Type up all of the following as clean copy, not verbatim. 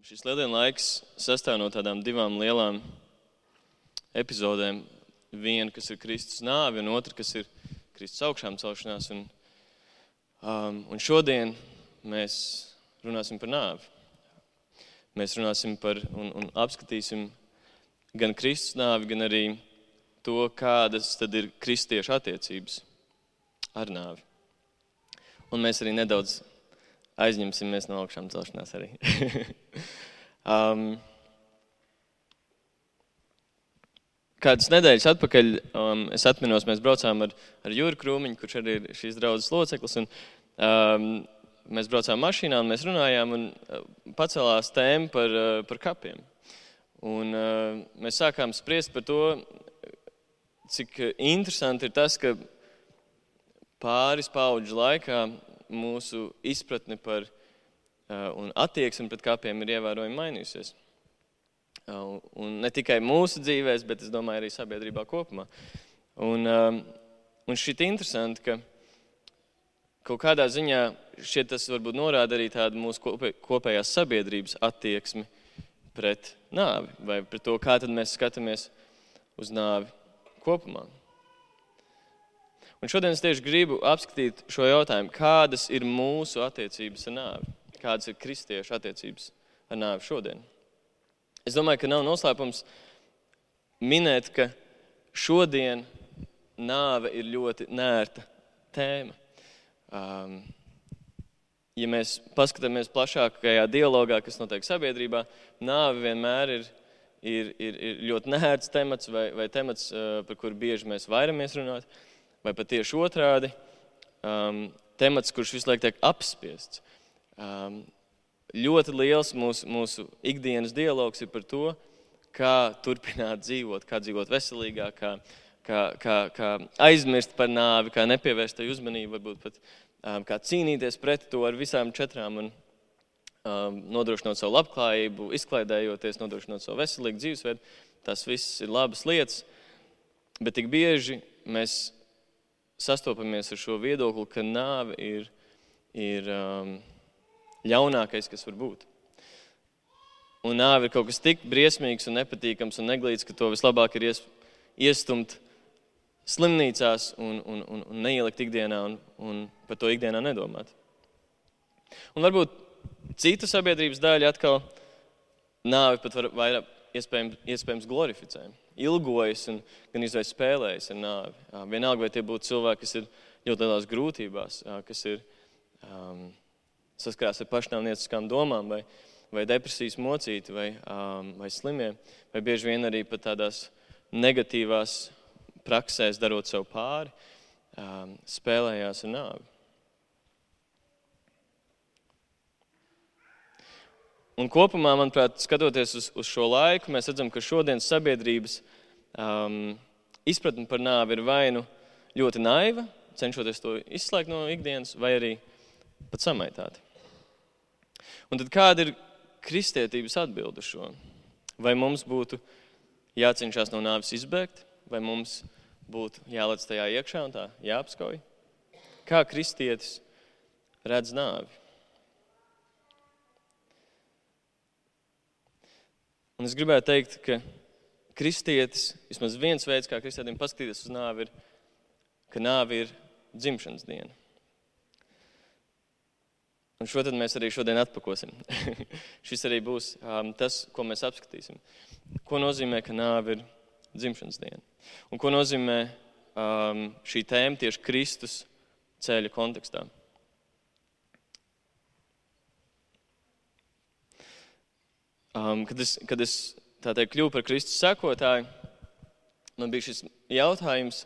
Šis lieldienu laiks sastāv no tādām divām lielām epizodēm. Viena, kas ir Kristus nāve, un otra, kas ir Kristus augšām celšanās. Un šodien mēs runāsim par nāvi. Mēs runāsim par un apskatīsim gan Kristus nāvi, gan arī to, kādas tad ir kristiešu attiecības ar nāvi. Un mēs arī nedaudz aizņemsimies no augšām celšanās arī. Kādas nedēļas atpakaļ es atminos, mēs braucām ar Juri Krūmiņu, kurš arī ir šīs draudzes loceklis, un mēs braucām mašīnā un mēs runājām un pacēlās tēma par kapiem. Un mēs sākām spriest par to, cik interesanti ir tas, ka pāris paudžu laikā mūsu izpratne par un attieksme pret kapiem ir ievērojami mainījusies. Un ne tikai mūsu dzīvēs, bet es domāju arī sabiedrībā kopumā. Un šķiet interesanti, ka kaut kādā ziņā šķiet tas varbūt norāda arī tādu mūsu kopējās sabiedrības attieksmi pret nāvi, vai pret to, kā tad mēs skatāmies uz nāvi kopumā. Un šodien es tieši gribu apskatīt šo jautājumu, kādas ir mūsu attiecības ar nāvi, kādas ir kristiešu attiecības ar nāvi šodien. Es domāju, ka nav noslēpums minēt, ka šodien nāve ir ļoti nērta tēma. Ja mēs paskatāmies plašākajā dialogā, kas notiek sabiedrībā, nāve vienmēr ir ļoti nērts temats vai temats, par kuru bieži mēs vairamies runāt, vai pat tieši otrādi, temats, kurš visu laiku tiek apspiests. Ļoti liels mūsu ikdienas dialogs ir par to, kā turpināt dzīvot, kā dzīvot veselīgāk, kā aizmirst par nāvi, kā nepievērst tai uzmanību, varbūt pat kā cīnīties pret to ar visām četrām un nodrošinot savu labklājību, izklaidējoties, nodrošinot savu veselīgu dzīvesveidu. Tas viss ir labas lietas, bet tik bieži mēs sastopamies ar šo viedokli, ka nāve ir ļaunākais, kas var būt. Un nāve ir kaut kas tik briesmīgs un nepatīkams un neglīts, ka to vislabāk ir iestumt slimnīcās un neielikt ikdienā un par to ikdienā nedomāt. Un varbūt cita sabiedrības daļa atkal nāvi pat vairāk iespējams glorificē. Ilgojas un gan izvēs spēlējas ar nāvi. Vienalga, vai tie būtu cilvēki, kas ir ļoti lielās grūtībās, kas ir saskarās ar pašnāvnieciskām domām vai depresijas mocīti vai slimie, vai bieži vien arī pat tādās negatīvās praksēs darot sev pāri, spēlējās ar nāvi. Un kopumā, manuprāt, skatoties uz šo laiku, mēs redzam, ka šodienas sabiedrības izpratne par nāvi ir vai nu ļoti naiva, cenšoties to izslēgt no ikdienas, vai arī pat samaitāti. Un tad kāda ir kristietības atbilde uz šo? Vai mums būtu jācenšas no nāves izbēgt, vai mums būtu jālec tajā iekšā un tā jāapskauj? Kā kristietis redz nāvi? Un es gribētu teikt, ka kristietis, vismaz viens veids, kā kristietim paskatīties uz nāvi, ir, ka nāvi ir dzimšanas diena. Un šo tad mēs arī šodien atpakosim. Šis arī būs tas, ko mēs apskatīsim. Ko nozīmē, ka nāve ir dzimšanas diena? Un ko nozīmē šī tēma tieši Kristus ceļa kontekstā? Kad es tā teikt kļuvu par Kristus sekotāju, man bija šis jautājums,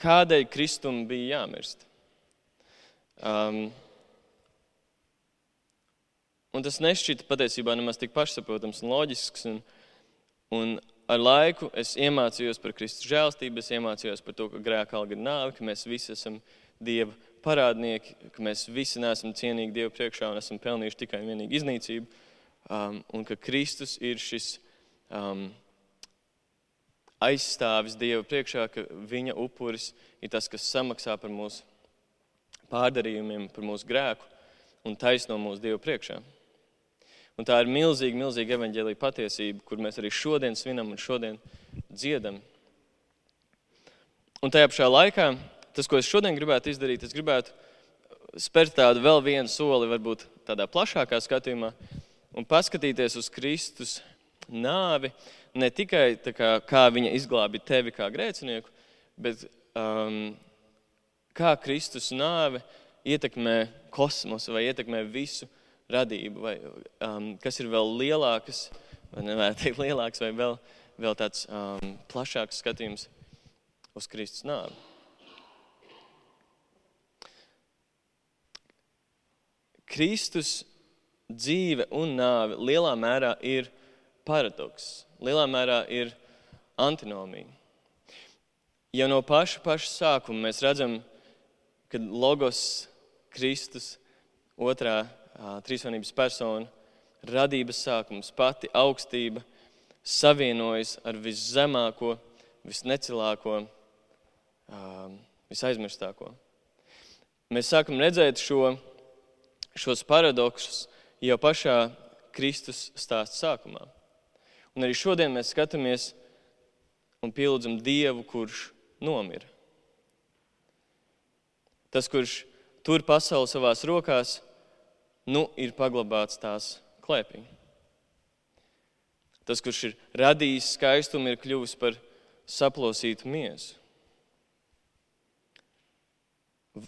kādēļ Kristum bija jāmirst? Un tas nešķita patiesībā nemaz tik pašsaprotams un loģisks. Un ar laiku es iemācījos par Kristus žēlstību, es iemācījos par to, ka grēka alga ir nāve, ka mēs visi esam Dieva parādnieki, ka mēs visi neesam cienīgi Dievu priekšā un esam pelnījuši tikai un vienīgi iznīcību. Un ka Kristus ir šis aizstāvis Dieva priekšā, ka viņa upuris ir tas, kas samaksā par mūsu pārdarījumiem, par mūsu grēku un taisno mūsu Dievu priekšā. Un tā ir milzīga evaņģēlija patiesība, kur mēs arī šodien svinam un šodien dziedam. Un tajā pašā laikā, tas, ko es šodien gribētu izdarīt, es gribētu spērt tādu vēl vienu soli, varbūt tādā plašākā skatījumā, un paskatīties uz Kristus nāvi, ne tikai tā kā viņa izglābi tevi kā grēcinieku, bet kā Kristus nāve ietekmē kosmosu vai ietekmē visu radību, vai kas ir vēl lielākas, vai nevarētu teikt lielāks, vai vēl tāds plašāks skatījums uz Kristus nāvi. Kristus dzīve un nāve lielā mērā ir paradoks, lielā mērā ir antinomija. Jau no paša sākuma mēs redzam, kad Logos, Kristus, otrā trīsvienības persona, radības sākums, pati augstība, savienojas ar viszemāko, visnecilāko, visaizmirstāko. Mēs sākam redzēt šos paradoksus jau pašā Kristus stāsta sākumā. Un arī šodien mēs skatāmies un pielūdzam Dievu, kurš nomira. Tas, kurš tur pasauli savās rokās, ir paglabāts tās klēpī. Tas, kurš ir radījis skaistumu, ir kļuvis par saplosītu miesu.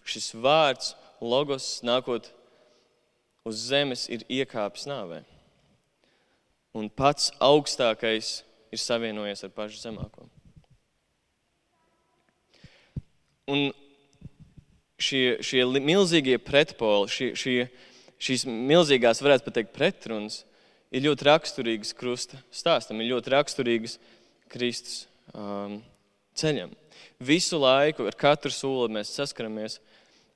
Šis vārds, Logos, nākot uz zemes, ir iekāpis nāvē. Un pats augstākais ir savienojies ar pašu zemāko. Un šie milzīgie pretpoli, šīs milzīgās, varētu pateikt, pretrunas, ir ļoti raksturīgas krusta stāstam, ir ļoti raksturīgas Kristus ceļam. Visu laiku, ar katru soli mēs saskaramies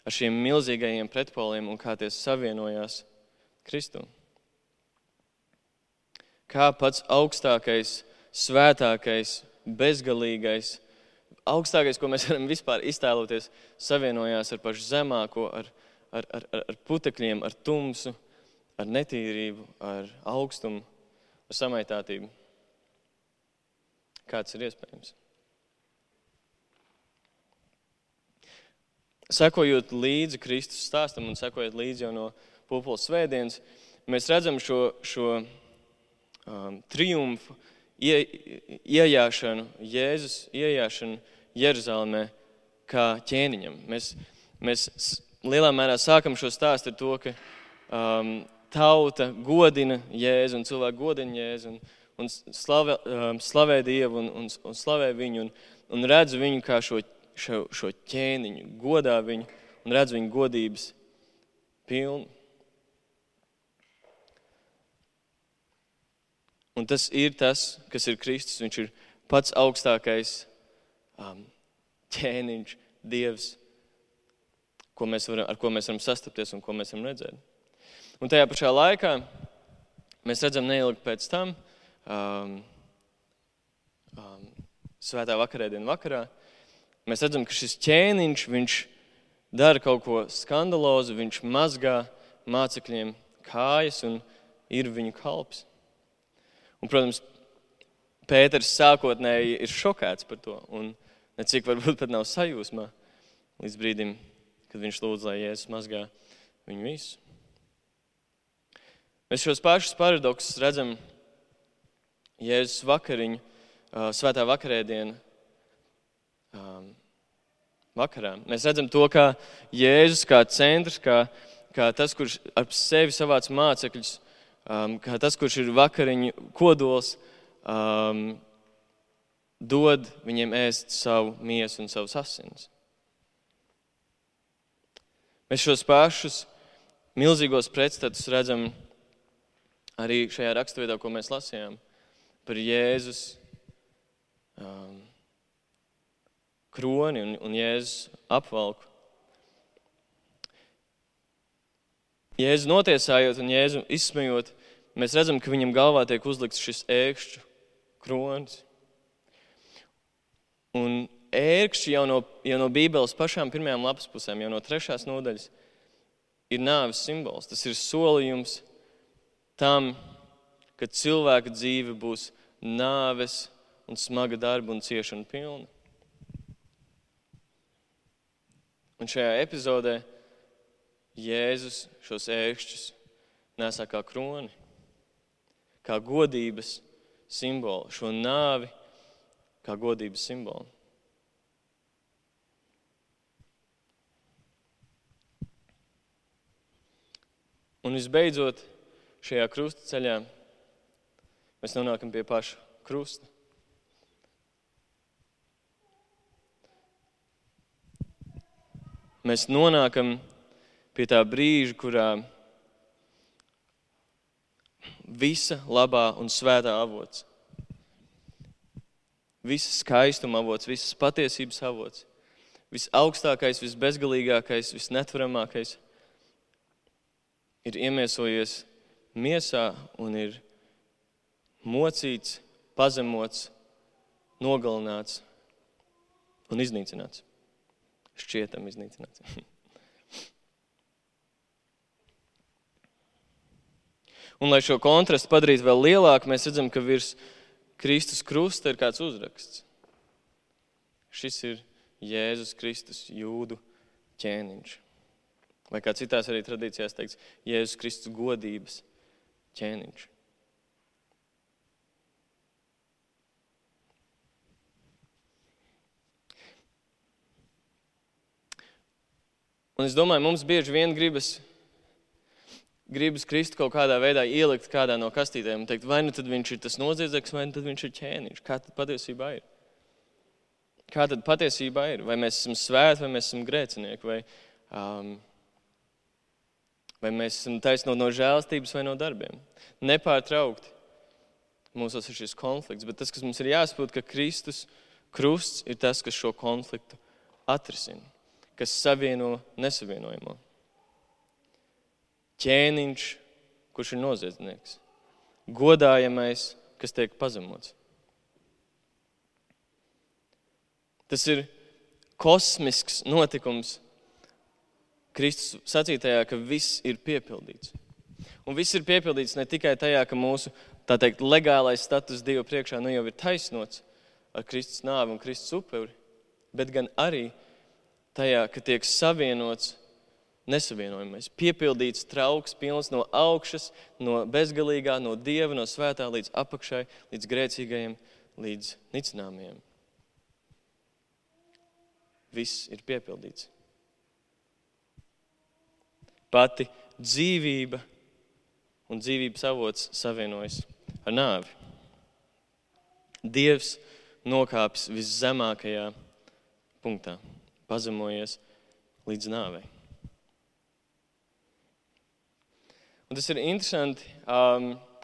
ar šiem milzīgajiem pretpoliem un kā tie savienojās Kristu. Kā pats augstākais, svētākais, bezgalīgais, augstākais, ko mēs varam vispār iztēloties, savienojās ar pašu zemāko, ar putekļiem, ar tumsu, ar netīrību, ar augstumu, ar samaitātību. Kāds ir iespējams? Sekojot līdzi Kristus stāstam un sekojot līdzi jau no Pūpoles svētdienas, mēs redzam šo triumfu, iejāšanu, Jēzus iejāšanu Jeruzalemē kā ķēniņam. Mēs lielā mērā sākam šo stāstu ar to, ka tauta godina Jēzu un cilvēki godina Jēzu un slavē Dievu un slavē viņu un redz viņu kā šo ķēniņu, godā viņu un redz viņu godības pilnu. Un tas ir tas, kas ir Kristus. Viņš ir pats augstākais ķēniņš, Dievs, ar ko mēs varam sastapties un ko mēs varam redzēt. Un tajā pašā laikā mēs redzam neilgi pēc tam, svētā vakarēdienu vakarā, mēs redzam, ka šis ķēniņš, viņš dara kaut ko skandalozu, viņš mazgā mācekļiem kājas un ir viņu kalps. Un, protams, Pēters sākotnēji ir šokēts par to un necik varbūt pat nav sajūsmā līdz brīdim, kad viņš lūdz, lai Jēzus mazgā viņu visu. Mēs šos pašus paradoksus redzam Jēzus vakariņu, svētā vakarēdiena vakarā. Mēs redzam to, kā Jēzus kā centrs, kā tas, kurš ar sevi savāc mācekļus, kā tas, kurš ir vakariņu kodols, dod viņiem ēst savu miesu un savus asinis. Mēs šos pašus milzīgos pretstatus redzam arī šajā raksturvietā, ko mēs lasījām par Jēzus kroni un Jēzus apvalku. Jēzu notiesājot un Jēzu izsmejot, mēs redzam, ka viņam galvā tiek uzlikts šis ērkšķu kronis. Un ērkšķi jau no Bībeles pašām pirmajām lapas pusēm, jau no 3. nodaļas, ir nāves simbols. Tas ir solījums tam, ka cilvēka dzīve būs nāves un smaga darba un ciešana pilna. Un šajā epizodē Jēzus šos ēkšķus nesā kā kroni, kā godības simbolu, šo nāvi kā godības simbolu. Un visbeidzot, šajā krusta ceļā mēs nonākam pie paša krusta. Mēs nonākam pie tā brīža, kurā visa labā un svētā avots, visas skaistuma avots, visas patiesības avots, visaugstākais, visbezgalīgākais, visnetvaramākais ir iemiesojies miesā un ir mocīts, pazemots, nogalināts un iznīcināts. Šķietam iznīcināts. Un, lai šo kontrastu padarītu vēl lielāku, mēs redzam, ka virs Kristus krusta ir kāds uzraksts. Šis ir Jēzus Kristus jūdu ķēniņš. Vai kā citās arī tradīcijās teikts, Jēzus Kristus godības ķēniņš. Un es domāju, mums bieži vien gribas Kristu kaut kādā veidā ielikt kādā no kastītēm un teikt, vai nu tad viņš ir tas noziedznieks, vai nu tad viņš ir ķēniņš. Kā tad patiesībā ir? Kā tad patiesībā ir? Vai mēs esam svēti, vai mēs esam grēcinieki, vai mēs esam taisnot no žēlastības vai no darbiem? Nepārtraukti mūsos ir šis konflikts, bet tas, kas mums ir jāsaprot, ka Kristus krusts ir tas, kas šo konfliktu atrisina, kas savieno nesavienojamo. Ķēniņš, kurš ir noziedznieks. Godājamais, kas tiek pazemots. Tas ir kosmisks notikums Kristus sacītajā, ka viss ir piepildīts. Un viss ir piepildīts ne tikai tajā, ka mūsu, tā teikt, legālais status Dieva priekšā nu jau ir taisnots ar Kristus nāvi un Kristus upuri, bet gan arī tajā, ka tiek savienots nesavienojamais, piepildīts trauks, pilns no augšas, no bezgalīgā, no Dieva, no svētā līdz apakšai, līdz grēcīgajiem, līdz nicināmajiem. Viss ir piepildīts. Pati dzīvība un dzīvības avots savienojas ar nāvi. Dievs nokāpis viszemākajā punktā, pazemojies līdz nāvei. Un tas ir interesanti,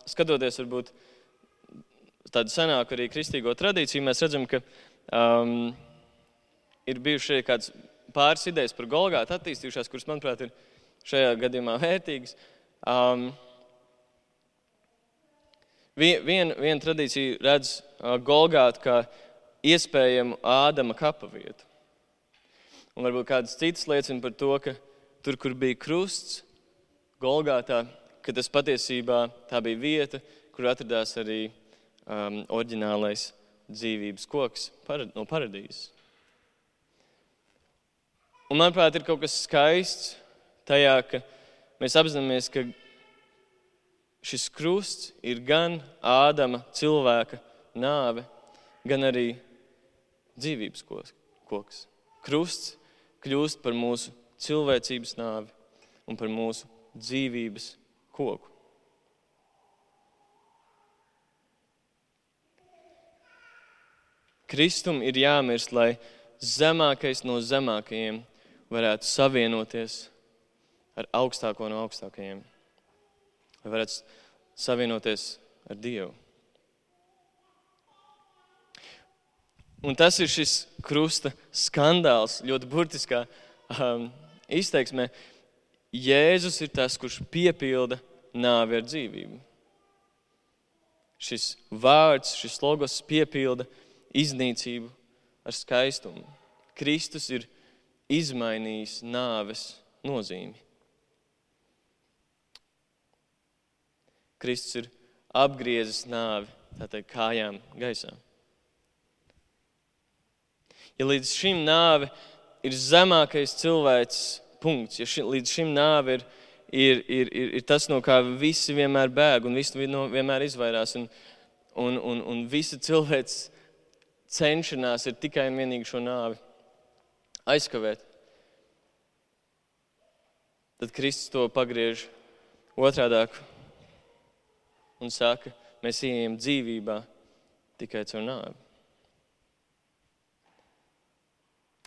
skatoties varbūt tādu senāku arī kristīgo tradīciju, mēs redzam, ka ir bijuši kāds pāris idejas par Golgātu attīstījušās, kuras, manuprāt, ir šajā gadījumā vērtīgas. Viena tradīcija redz Golgātu kā iespējamu Ādama kapa vietu. Un varbūt kādas citas liecina par to, ka tur, kur bija krusts, Golgātā, ka tas patiesībā tā bija vieta, kur atradās arī oriģinālais dzīvības koks no paradīzes. Un, manuprāt, ir kaut kas skaists tajā, ka mēs apzināmies, ka šis krusts ir gan Ādama cilvēka nāve, gan arī dzīvības koks. Krusts kļūst par mūsu cilvēcības nāvi un par mūsu dzīvības koku. Kristum ir jāmirst, lai zemākais no zemākajiem varētu savienoties ar augstāko no augstākajiem. Lai varētu savienoties ar Dievu. Un tas ir šis krusta skandāls, ļoti burtiskā izteiksmē. Jēzus ir tas, kurš piepilda nāvi ar dzīvību. Šis vārds, šis logos piepilda iznīcību ar skaistumu. Kristus ir izmainījis nāves nozīmi. Kristus ir apgriezis nāvi, tā teikt, kājām gaisā. Ja līdz šim nāve ir zemākais cilvēks punkts, ja līdz šim nāve ir tas, no kā visi vienmēr bēg un visi vienmēr izvairās, un visa cilvēks cenšanās ir tikai un vienīgi šo nāvi aizkavēt, tad Kristus to pagriež otrādāk un saka, mēs ieejam dzīvībā tikai caur nāvi.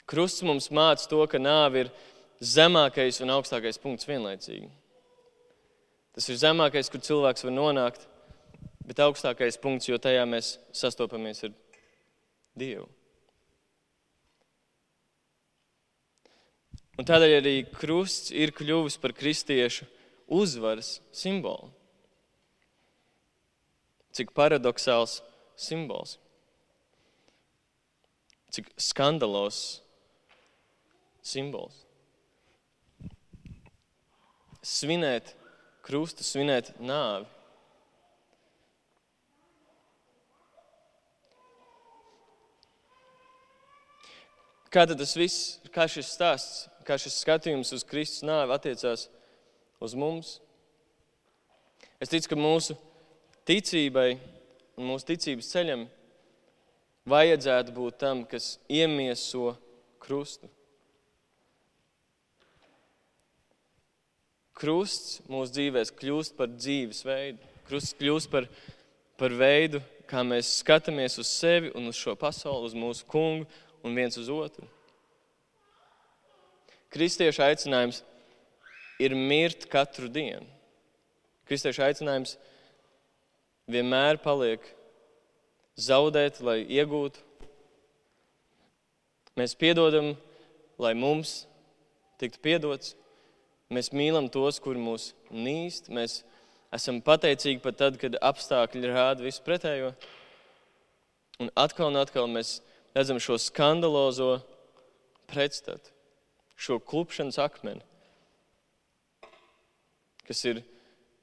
Krusts mums māca to, ka nāve ir zemākais un augstākais punkts vienlaicīgi. Tas ir zemākais, kur cilvēks var nonākt, bet augstākais punkts, jo tajā mēs sastopamies ar Dievu. Un tādēļ arī krusts ir kļuvis par kristiešu uzvaras simbolu. Cik paradoxāls simbols. Cik skandalos simbols. Svinēt krustu, svinēt nāvi. Kā tad tas viss, kā šis stāsts, kā šis skatījums uz Kristus nāvi attiecās uz mums? Es ticu, ka mūsu ticībai un mūsu ticības ceļam vajadzētu būt tam, kas iemieso krustu. Krusts mūsu dzīvēs kļūst par dzīves veidu. Krusts kļūst par veidu, kā mēs skatāmies uz sevi un uz šo pasauli, uz mūsu kungu un viens uz otru. Kristiešu aicinājums ir mirt katru dienu. Kristiešu aicinājums vienmēr paliek zaudēt, lai iegūtu. Mēs piedodam, lai mums tiktu piedots. Mēs mīlam tos, kuri mūs nīst. Mēs esam pateicīgi pat tad, kad apstākļi rāda visu pretējo. Un atkal mēs redzam šo skandalozo pretstatu, šo klupšanas akmeni, kas ir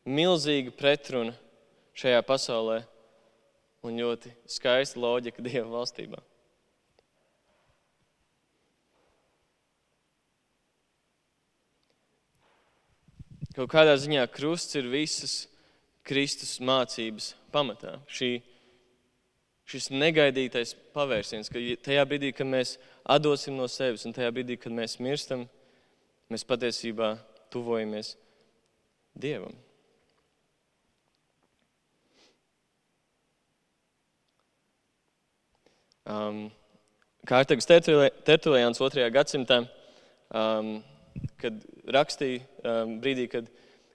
milzīga pretruna šajā pasaulē un ļoti skaista loģika Dieva valstībā. Kaut kādā ziņā krusts ir visas Kristus mācības pamatā. Šis negaidītais pavērsiens, ka tajā brīdī, kad mēs atdosim no sevis un tajā brīdī, kad mēs mirstam, mēs patiesībā tuvojamies Dievam. Kārtagas Tertuliāns 2. gadsimtā, kad rakstīja brīdī, kad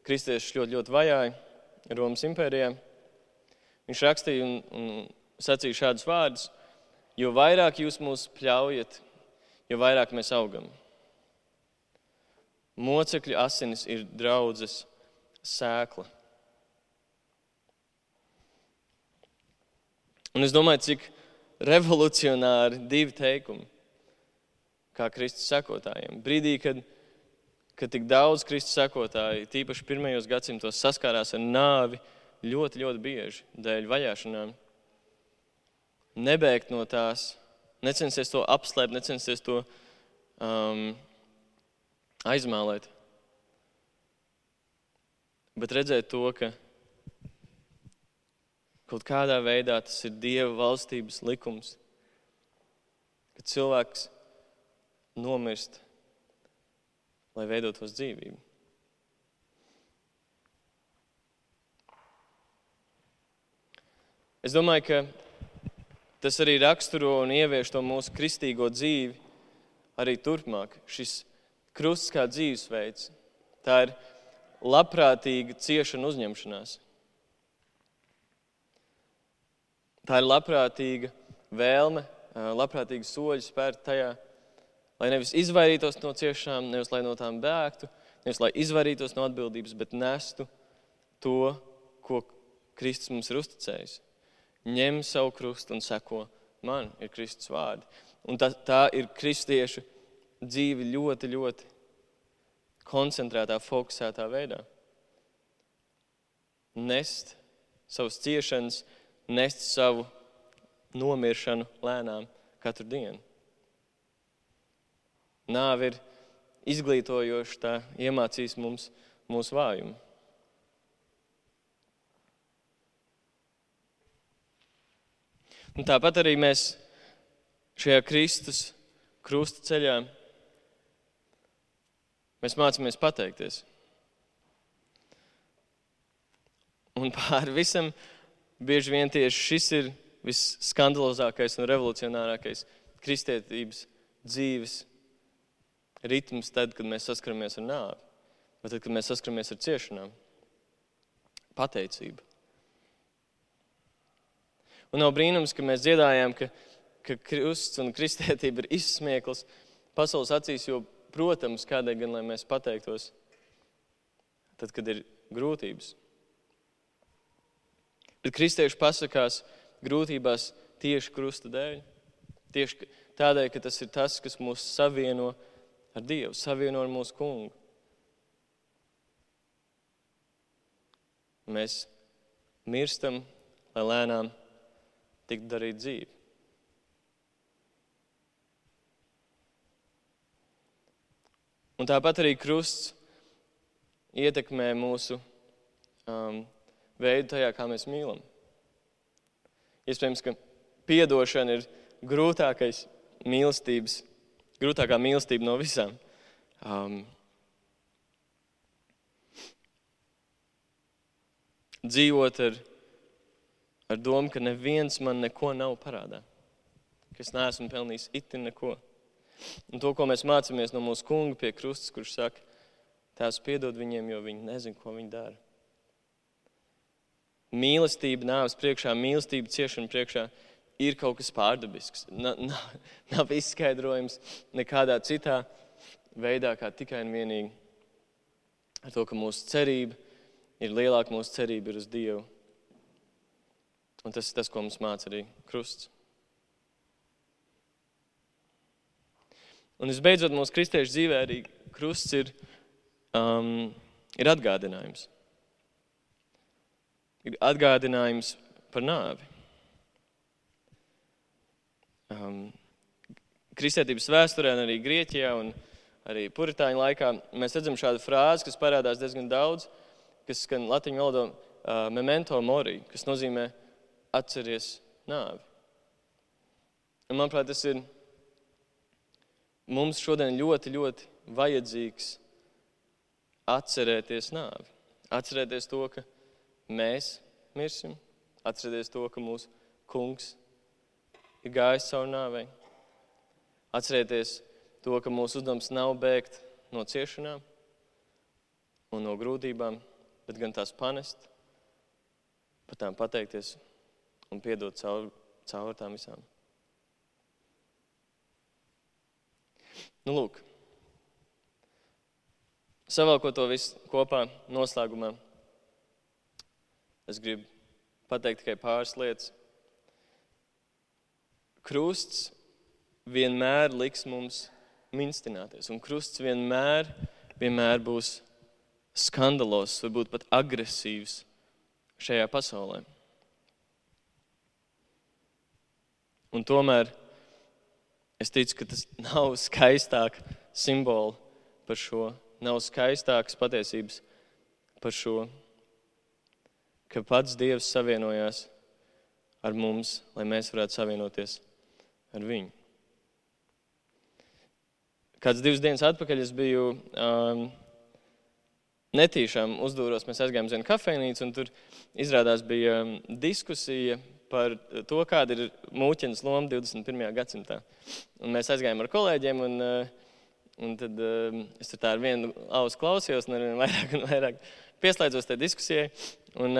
kristiešus ļoti vajāja Romas impērijā, viņš rakstīja un sacīja šādus vārdus: jo vairāk jūs mūs pļaujat, jo vairāk mēs augam. Mocekļu asinis ir draudzes sēkla. Un es domāju, cik revolucionāri divi teikumi, kā Kristus sekotājiem. Brīdī, kad tik daudz Kristus sekotāji, tīpaši pirmajos gadsimtos, saskārās ar nāvi ļoti, ļoti bieži dēļ vajāšanām, nebēgt no tās, necensties to apslēpt, necensties to aizmālēt, bet redzēt to, ka kaut kādā veidā tas ir Dieva valstības likums, ka cilvēks nomirst, lai veidotos dzīvību. Es domāju, ka tas arī raksturo un ievieš to mūsu kristīgo dzīvi arī turpmāk. Šis krusts kā dzīvesveids, tā ir labprātīga ciešana uzņemšanās. Tā ir labprātīga vēlme, labprātīga soļi spērt tajā, lai nevis izvairītos no ciešanām, nevis lai no tām bēgtu, nevis lai izvairītos no atbildības, bet nestu to, ko Kristus mums ir uzticējis. Ņem savu krustu un seko man, ir Kristus vārdi. Un tā ir kristiešu dzīve ļoti, ļoti koncentrētā, fokusētā veidā. Nest savas ciešanas, nest savu nomiršanu lēnām katru dienu. Nāve ir izglītojoša, tā iemācīs mums mūsu vājumu. Un tāpat arī mēs šajā Kristus krusta ceļā mēs mācāmies pateikties. Un pār visam bieži vien tieši šis ir visskandalozākais un revolucionārākais kristietības dzīves ritms tad, kad mēs saskaramies ar nāvi, vai tad, kad mēs saskaramies ar ciešanām. Pateicība. Un nav brīnums, ka mēs dziedājām, ka krusts un kristietība ir izsmiekls pasaules acīs, jo, protams, kādēļ gan, lai mēs pateiktos, tad, kad ir grūtības. Bet kristieši pasakās grūtībās tieši krusta dēļ. Tieši tādēļ, ka tas ir tas, kas mūs savieno ar Dievu, savieno ar mūsu kungu. Mēs mirstam, lai lēnām tiktu darīt dzīvi. Un tāpat arī krusts ietekmē mūsu veidu tajā, kā mēs mīlam. Iespējams, ka piedošana ir grūtākā mīlestība no visām. Dzīvot ar domu, ka neviens man neko nav parādā. Ka es neesmu pelnījis itin neko. Un to, ko mēs mācāmies no mūsu kunga pie krustas, kurš saka, Tēvs piedod viņiem, jo viņi nezin, ko viņi dara. Mīlestība nāves priekšā, mīlestība ciešana priekšā ir kaut kas pārdabisks. Nav izskaidrojums nekādā citā veidā, kā tikai un vienīgi ar to, ka mūsu cerība ir lielāka, mūsu cerība ir uz Dievu. Un tas ir tas, ko mums māca arī krusts. Un visbeidzot, mūsu kristiešu dzīvē arī krusts ir atgādinājums. Ir atgādinājums par nāvi. Kristietības vēsturē un arī Grieķijā un arī puritāņu laikā mēs redzam šādu frāzi, kas parādās diezgan daudz, kas skan latiņu valodā memento mori, kas nozīmē atceries nāvi. Un, manuprāt, tas ir mums šodien ļoti, ļoti vajadzīgs atcerēties nāvi. Atcerēties to, ka mēs mirsim, atcerēties to, ka mūsu kungs ir gājis cauri nāvei. Atcerēties to, ka mūsu uzdevums nav bēgt no ciešanām un no grūtībām, bet gan tās panest, par tām pateikties un piedot cauri tām visām. Nu, lūk. Savalkot to visu kopā noslēgumā, es gribu pateikt tikai pāris lietas. Krusts vienmēr liks mums minstināties, un krusts vienmēr būs skandalos, varbūt pat agresīvs šajā pasaulē. Un tomēr es ticu, ka tas nav skaistāk simboli par šo, nav skaistākas patiesības par šo, ka pats Dievs savienojās ar mums, lai mēs varētu savienoties ar viņu. Kāds 2 dienas atpakaļ es biju netīšām uzdūros, mēs aizgājām uz vienu kafejnīcu, un tur izrādās bija diskusija par to, kāda ir mūķenes loma 21. gadsimtā. Un mēs aizgājām ar kolēģiem, un tad es tur tā ar vienu ausu klausījos, un vairāk pieslēdzos tajā diskusijai. Un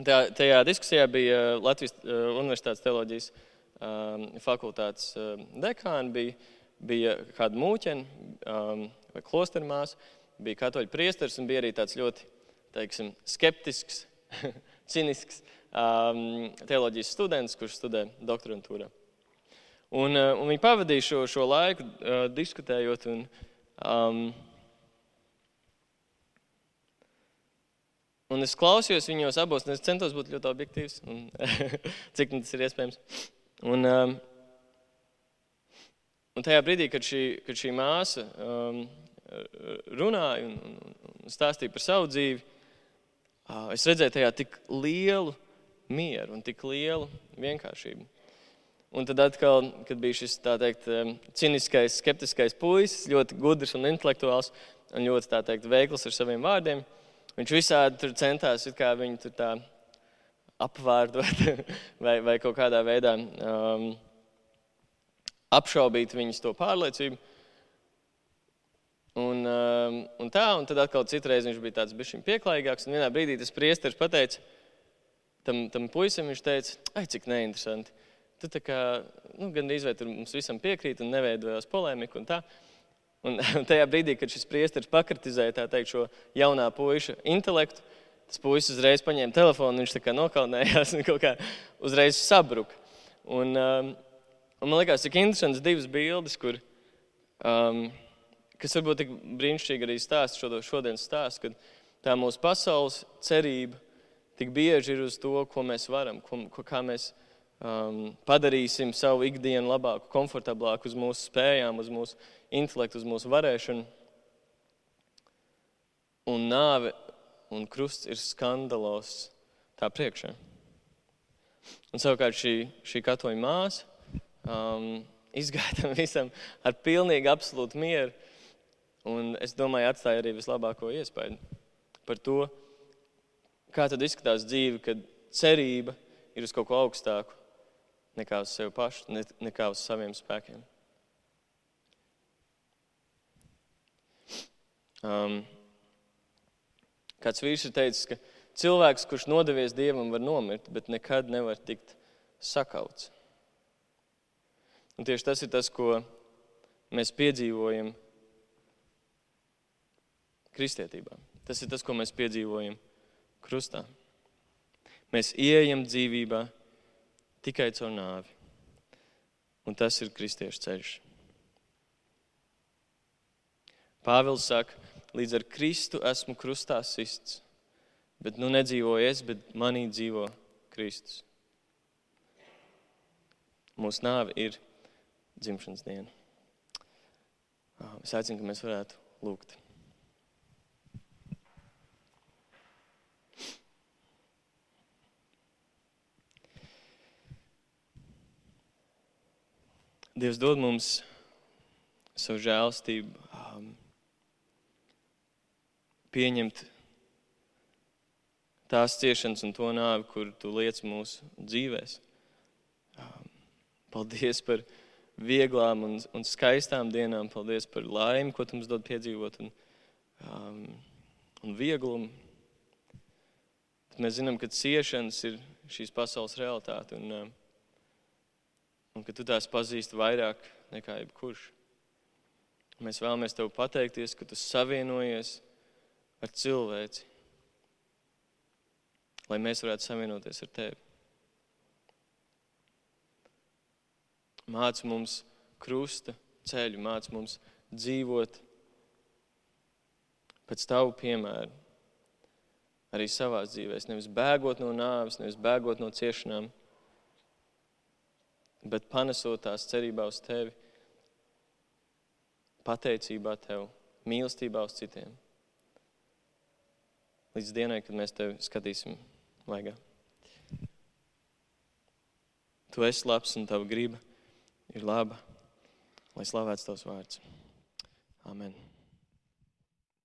tajā diskusijā bija Latvijas Universitātes teoloģijas fakultātes dekāni, bija kāda mūķene vai klostermāsa, bija katoļu priesteris un bija arī tāds ļoti, teiksim, skeptisks, cinisks teoloģijas students, kurš studē doktorantūrā. Un viņi pavadīja šo laiku diskutējot un Un es klausījos viņos abos, un es centos būt ļoti objektīvs, un, cik tas ir iespējams. Un tajā brīdī, kad šī māsa runāja un stāstīja par savu dzīvi, es redzēju tajā tik lielu mieru un tik lielu vienkāršību. Un tad atkal, kad bija šis, tā teikt, ciniskais, skeptiskais puisis, ļoti gudrs un intelektuāls un ļoti, tā teikt, veikls ar saviem vārdiem, viņš visādi tur centās, it kā viņu tur tā apvārdot vai kaut kādā veidā apšaubīt viņas to pārliecību. Un tad atkal citreiz viņš bija tāds bišķiņ pieklājīgāks, un vienā brīdī tas priesteris pateica tam puisim, viņš teica, ai, cik neinteresanti. Tu tā kā, gandrīz vai tur mums visam piekrīt un neveidojās polēmiku un tā. Un tajā brīdī, kad šis priesteris pakritizēja, tā teikt, šo jaunā puiša intelektu, tas puisis uzreiz paņēma telefonu, viņš tā kā nokaunējās un kaut kā uzreiz sabruka. Un man liekas, cik interesants divas bildes, kur, kas varbūt tik brīnišķīgi arī stāsta šodienas stāstu, kad tā mūsu pasaules cerība tik bieži ir uz to, ko mēs varam, kā mēs padarīsim savu ikdienu labāku, komfortablāku uz mūsu spējām, uz mūsu intelektu, uz mūsu varēšanu. Un nāve un krusts ir skandalos tā priekšā. Un savukārt šī katoļa māsa izgāja tam visam ar pilnīgi absolūtu mieru. Un es domāju, atstāja arī vislabāko iespēju par to, kā tad izskatās dzīve, kad cerība ir uz kaut ko augstāku nekā uz sevi pašu, nekā uz saviem spēkiem. Kāds vīrs ir teicis, ka cilvēks, kurš nodevies Dievam, var nomirt, bet nekad nevar tikt sakauts. Un tieši tas ir tas, ko mēs piedzīvojam kristietībā. Tas ir tas, ko mēs piedzīvojam krustā. Mēs ieejam dzīvībā tikai caur nāvi. Un tas ir kristiešu ceļš. Pāvils saka, līdz ar Kristu esmu krustā sists, bet nu nedzīvoju es, bet manī dzīvo Kristus. Mūsu nāve ir dzimšanas diena. Es aicinu, ka mēs varētu lūgt. Dievs dod mums savu žēlstību, pieņemt tās ciešanas un to nāvi, kur tu liec mūsu dzīvēs. Paldies par vieglām un skaistām dienām. Paldies par laimi, ko tu mums dod piedzīvot un vieglumu. Mēs zinām, ka ciešanas ir šīs pasaules realitāte un ka tu tās pazīsti vairāk nekā jebkurš. Mēs vēlamies tev pateikties, ka tu savienojies ar cilvēci, lai mēs varētu savienoties ar tevi. Māc mums krusta ceļu, māc mums dzīvot pēc tavu piemēru, arī savās dzīvēs, nevis bēgot no nāves, nevis bēgot no ciešanām, bet panesot tās cerībā uz tevi, pateicībā tev, mīlestībā uz citiem. Līdz dienai, kad mēs tevi skatīsim vaigā. Tu esi labs un tava griba ir laba, lai slavēts tavs vārds. Amen.